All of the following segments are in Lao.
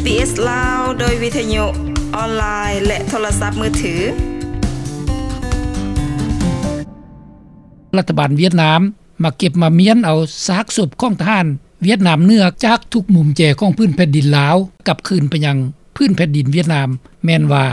ບີບີເອສ ລາວ ໂດຍວິທະຍຸອອນລາຍ ແລະ ໂທລະສັບມືຖື. ລັດຖະບານຫວຽດນາມ ມາເກັບມາມ້ຽນເອົາຊາກສົບຂອງທະຫານຫວຽດນາມເໜືອຈາກທຸກມຸມແຈຂອງພື້ນແຜ່ນດິນລາວ ກັບຄືນໄປຍັງພື້ນແຜ່ນດິນຫວຽດນາມ. ແມ່ນວ່າ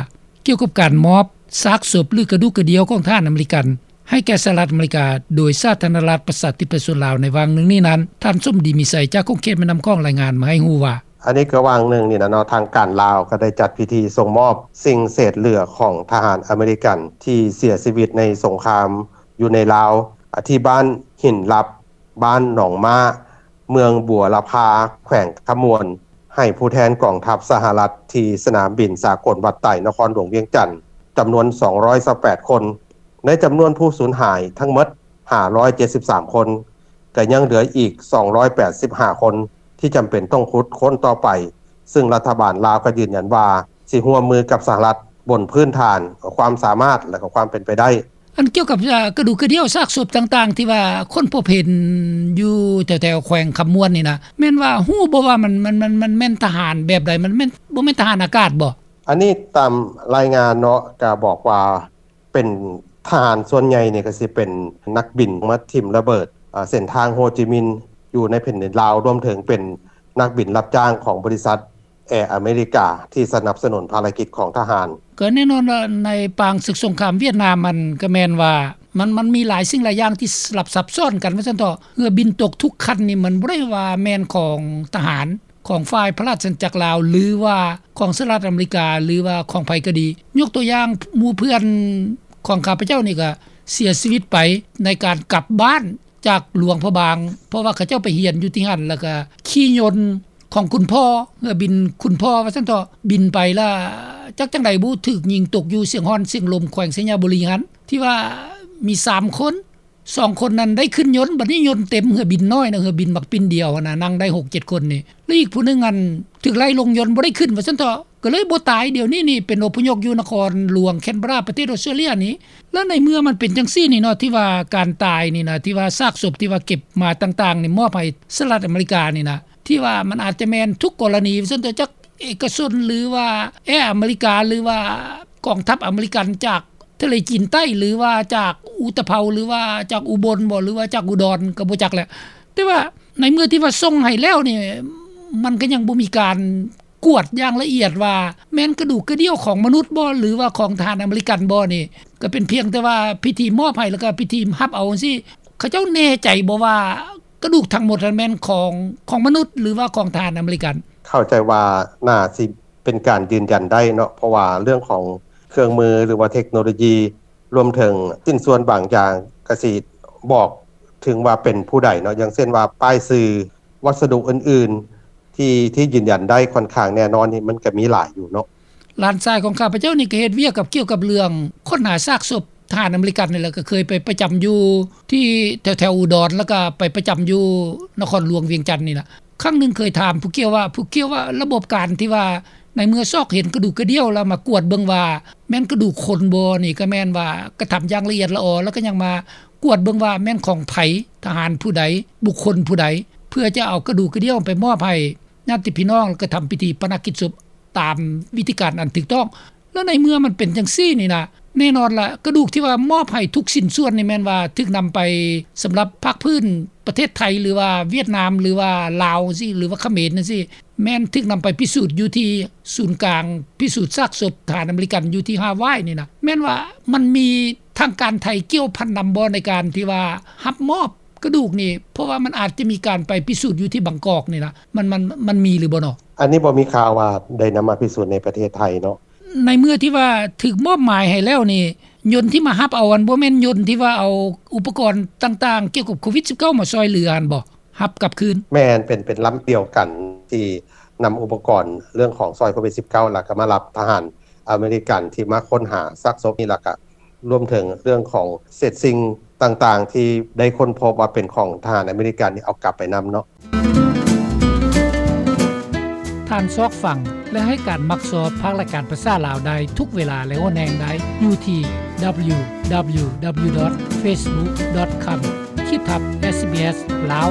ກ່ຽວກັບການມອບຊາກສົບ ຫຼື ກະດູກກະດຽວຂອງທະຫານອາເມລິກັນ ໃຫ້ແກ່ສະຫະລັດອາເມລິກາ ໂດຍສາທາລະນະລັດປະຊາທິປະໄຕໂຊນລາວ ໃນຫວ່າງໜຶ່ງນີ້ນັ້ນ, ທ່ານສົມດີ ມີໄຊ ຈາກຂົງເຂດແມ່ນ້ຳຂອງ ລາຍງານມາໃຫ້ຮູ້ວ່າ: ອັນນີ້ກໍຫວ່າງໜຶ່ງນີ້ນະເນາະ, ທາງການລາວກໍໄດ້ຈັດພິທີສົ່ງມອບສິ່ງເສດເຫຼືອຂອງທະຫານອາເມລິກັນທີ່ເສຍຊີວິດໃນສົງຄາມຢູ່ໃນລາວ ທີ່ບ້ານຫີນລັບ ບ້ານໜອງມ້າ ເມືອງບົວລະພາ ແຂວງຄຳມ່ວນ ໃຫ້ຜູ້ແທນກອງທັບສະຫະລັດ ທີ່ສະໜາມບິນສາກົນວັດໄຕ ນະຄອນຫຼວງວຽງຈັນ ຈຳນວນສອງຮ້ອຍຊາວແປດຄົນ. ໃນຈຳນວນຜູ້ສູນຫາຍທັງໝົດຫ້າຮ້ອຍເຈັດສິບສາມຄົນ, ກໍຍັງເຫຼືອອີກສອງຮ້ອຍແປດສິບຫ້າຄົນ ທີ່ຈຳເປັນຕ້ອງຂຸດຄົ້ນຕໍ່ໄປ, ຊຶ່ງລັດຖະບານລາວກໍຢືນຢັນວ່າ ຊິຮ່ວມມືກັບສະຫະລັດບົນພື້ນຖານຄວາມສາມາດ ແລະ ກໍຄວາມເປັນໄປໄດ້. ອັນກ່ຽວກັບ ເອີ່ ກະດູກກະດຽວ ຊາກສົບຕ່າງໆ ທີ່ວ່າຄົ້ນພົບເຫັນຢູ່ແຖວໆ ແຂວງຄຳມ່ວນນີ້ນະ ແມ່ນວ່າຮູ້ບໍ່ວ່າມັນ ມັນ ມັນ ມັນແມ່ນທະຫານແບບໃດ? ມັນແມ່ນ ບໍ່ແມ່ນທະຫານອາກາດບໍ່? ອັນນີ້ຕາມລາຍງານເນາະ ກະບອກວ່າເປັນທະຫານ ສ່ວນໃຫຍ່ນີ້ກະຊິເປັນນັກບິນມາຖິ້ມລະເບີດ ເອີ່ ເສັ້ນທາງໂຮຈິມິນ ຢູ່ໃນແຜ່ນດິນລາວ, ລວມເຖິງເປັນນັກບິນຮັບຈ້າງຂອງບໍລິສັດ ແອອາເມລິກາ ທີ່ສະໜັບສະໜູນພາລະກິດຂອງທະຫານ. ກໍແນ່ນອນວ່າໃນປາງເສິກສົງຄາມຫວຽດນາມ ມັນກໍແມ່ນວ່າ ມັນ ມັນມີຫຼາຍສິ່ງຫຼາຍຢ່າງທີ່ສະຫຼັບຊັບຊ້ອນກັນວ່າຊັ້ນເຖາະ, ເຮືອບິນຕົກທຸກຄັນນີ້ ມັນບໍ່ໄດ້ວ່າແມ່ນຂອງທະຫານ ຂອງຝ່າຍພະລາຊະອານາຈັກລາວ ຫຼືວ່າຂອງສະຫະລັດອາເມລິກາ ຫຼືວ່າຂອງໃຜກໍດີ. ຍົກຕົວຢ່າງ ໝູ່ເພື່ອນຂອງຂ້າພະເຈົ້ານີ້ກໍເສຍຊີວິດໄປໃນການກັບບ້ານ ຈາກຫຼວງພະບາງ ເພາະວ່າເຂົາເຈົ້າໄປຮຽນຢູ່ທີ່ຫັ້ນ ແລ້ວກະຂີ່ຍົນຂອງຄຸນພໍ່ ເຮືອບິນຄຸນພໍ່ວ່າຊັ້ນເຖາະ ບິນໄປລະ ຈັກຈັ່ງໃດບໍ່ ຖືກຍິງຕົກຢູ່ຊຽງຮ້ອນຊຽງລົມ ແຂວງໄຊຍະບູລີຫັ້ນ ທີ່ວ່າມີສາມຄົນ ສອງຄົນນັ້ນໄດ້ຂຶ້ນຍົນ ບັດນີ້ຍົນເຕັມ ເຮືອບິນນ້ອຍນະ ເຮືອບິນໝາກປິ່ນດຽວຫັ້ນນະ ນັ່ງໄດ້ຫົກເຈັດຄົນນີ້ ແລະ ອີກຜູ້ໜຶ່ງຫັ້ນຖືກໄລ່ລົງຍົນ ບໍ່ໄດ້ຂຶ້ນວ່າຊັ້ນເຖາະ. ກໍເລີຍບໍ່ຕາຍ ດຽວນີ້ນີ້ເປັນອົບພະຍົບຢູ່ນະຄອນຫຼວງແຄນເບີຣາ ປະເທດອົດສະຕຣາເລຍນີ້. ແລ້ວໃນເມື່ອມັນເປັນຈັ່ງຊີ້ນີ້ເນາະ ທີ່ວ່າການຕາຍນີ້ນະ ທີ່ວ່າຊາກສົບທີ່ວ່າເກັບມາຕ່າງໆນີ້ ມອບໃຫ້ສະຫະລັດອາເມລິການີ້ນະ ທີ່ວ່າມັນອາດຈະແມ່ນທຸກກໍລະນີ ວ່າຊັ້ນເຖາະ ຈາກເອກະຊົນ ຫຼືວ່າແອອາເມລິກາ ຫຼືວ່າກອງທັບອາເມລິກັນ ຈາກທະເລຈີນໃຕ້ ຫຼືວ່າຈາກອຸຕະເພົາ ຫຼືວ່າຈາກອຸບົນບໍ ຫຼືວ່າຈາກອຸດອນ ກໍບໍ່ຈັກແຫຼະ. ແຕ່ວ່າໃນເມື່ອທີ່ວ່າສົ່ງໃຫ້ແລ້ວນີ້ ມັນກໍຍັງບໍ່ມີການ ກວດຢ່າງລະອຽດວ່າແມ່ນກະດູກກະດຽວຂອງມະນຸດບໍ ຫຼືວ່າຂອງທະຫານອາເມລິກັນບໍນີ້ ກໍເປັນພຽງແຕ່ວ່າພິທີມອບໃຫ້ ແລ້ວກໍພິທີຮັບເອົາຈັ່ງຊີ້. ເຂົາເຈົ້າແນ່ໃຈບໍ່ວ່າກະດູກທັງໝົດນັ້ນແມ່ນຂອງ ຂອງມະນຸດ ຫຼືວ່າຂອງທະຫານອາເມລິກັນ? ເຂົ້າໃຈວ່າໜ້າຊິເປັນການຢືນຢັນໄດ້ເນາະ ເພາະວ່າເລື່ອງຂອງເຄື່ອງມື ຫຼືວ່າເທັກໂນໂລຢີ ລວມເຖິງຊິ້ນສ່ວນບາງຢ່າງ ກະຊິບອກເຖິງວ່າເປັນຜູ້ໃດເນາະ ຢ່າງເຊັ່ນວ່າປ້າຍຊື່ ວັດສະດຸອື່ນໆ ທີ່ ທີ່ຢືນຢັນໄດ້ຂ້ອນຂ້າງແນ່ນອນນີ້ ມັນກະມີຫຼາຍຢູ່ເນາະ. ຫຼານຊາຍຂອງຂ້າພະເຈົ້ານີ້ກໍເຮັດວຽກກັບ ກ່ຽວກັບເລື່ອງຄົ້ນຫາຊາກສົບທະຫານອາເມລິກັນນີ້ແຫຼະ ກໍເຄີຍໄປປະຈຳຢູ່ທີ່ແຖວໆອຸດອນ ແລ້ວກໍໄປປະຈຳຢູ່ນະຄອນຫຼວງວຽງຈັນນີ້ລະ. ຄັ້ງໜຶ່ງເຄີຍຖາມຜູ້ກ່ຽວວ່າ ຜູ້ກ່ຽວວ່າລະບົບການທີ່ວ່າໃນເມື່ອຊອກເຫັນກະດູກກະດຽວ ແລ້ວມາກວດເບິ່ງວ່າແມ່ນກະດູກຄົນບໍ່ນີ້ ກໍແມ່ນວ່າກະທຳຢ່າງລະອຽດລະອໍ ແລ້ວກໍຍັງມາກວດເບິ່ງວ່າແມ່ນຂອງໃຜ ທະຫານຜູ້ໃດ ບຸກຄົນຜູ້ໃດ ເພື່ອຈະເອົາກະດູກກະດຽວໄປມອບໃຫ້ ຍາດຕິພີ່ນ້ອງ ແລ້ວກໍທຳພິທີປະນະກິດສົບຕາມວິທີການອັນຖືກຕ້ອງ. ແລ້ວໃນເມື່ອມັນເປັນຈັ່ງຊີ້ນີ້ນະ ແນ່ນອນລະ ກະດູກທີ່ວ່າມອບໃຫ້ທຸກຊິ້ນສ່ວນນີ້ ແມ່ນວ່າຖືກນຳໄປສຳລັບພາກພື້ນປະເທດໄທ ຫຼືວ່າຫວຽດນາມ ຫຼືວ່າລາວຈັ່ງຊີ້ ຫຼືວ່າຂະເໝນຈັ່ງຊີ້ ແມ່ນຖືກນຳໄປພິສູດຢູ່ທີ່ສູນກາງພິສູດຊາກສົບທະຫານອາເມລິກັນຢູ່ທີ່ຮາວາຍນີ້ນະ. ແມ່ນວ່າມັນມີທາງການໄທກ່ຽວພັນນຳບໍ່ ໃນການທີ່ວ່າຮັບມອບ ກະດູກນີ້ ເພາະວ່າມັນອາດຈະມີການໄປພິສູດຢູ່ທີ່ບາງກອກນີ້ນະ ມັນ ມັນ ມັນມີຫຼືບໍ່ເນາະ? ອັນນີ້ບໍ່ມີຂ່າວວ່າໄດ້ນຳມາພິສູດໃນປະເທດໄທເນາະ. ໃນເມື່ອທີ່ວ່າຖືກມອບໝາຍໃຫ້ແລ້ວນີ້ ຍົນທີ່ມາຮັບເອົາຫັ້ນ ບໍ່ແມ່ນຍົນທີ່ວ່າເອົາອຸປະກອນຕ່າງໆ ກ່ຽວກັບໂຄວິດສິບເກົ້າ ມາຊ່ອຍເຫຼືອຫັ້ນບໍ? ຮັບກັບຄືນ? ແມ່ນ ເປັນ ເປັນລຳດຽວກັນທີ່ນຳອຸປະກອນເລື່ອງຂອງຊ່ອຍໂຄວິດສິບເກົ້າ ແລ້ວກໍມາຮັບທະຫານອາເມລິກັນທີ່ມາຄົ້ນຫາຊາກສົບນີ້ ແລ້ວກໍ ລວມເຖິງເລື່ອງຂອງເສດສິ່ງຕ່າງໆ ທີ່ໄດ້ຄົ້ນພົບວ່າເປັນຂອງທະຫານອາເມລິກັນນີ້ ເອົາກັບໄປນຳເນາະ. ທ່ານຊອກຟັງ ແລະ ໃຫ້ການມັກຊອບພາກລາຍການພາສາລາວໄດ້ທຸກເວລາ ແລະ ຫົນແຫ່ງໃດ ຢູ່ທີ່ www.facebook.com/sbslao.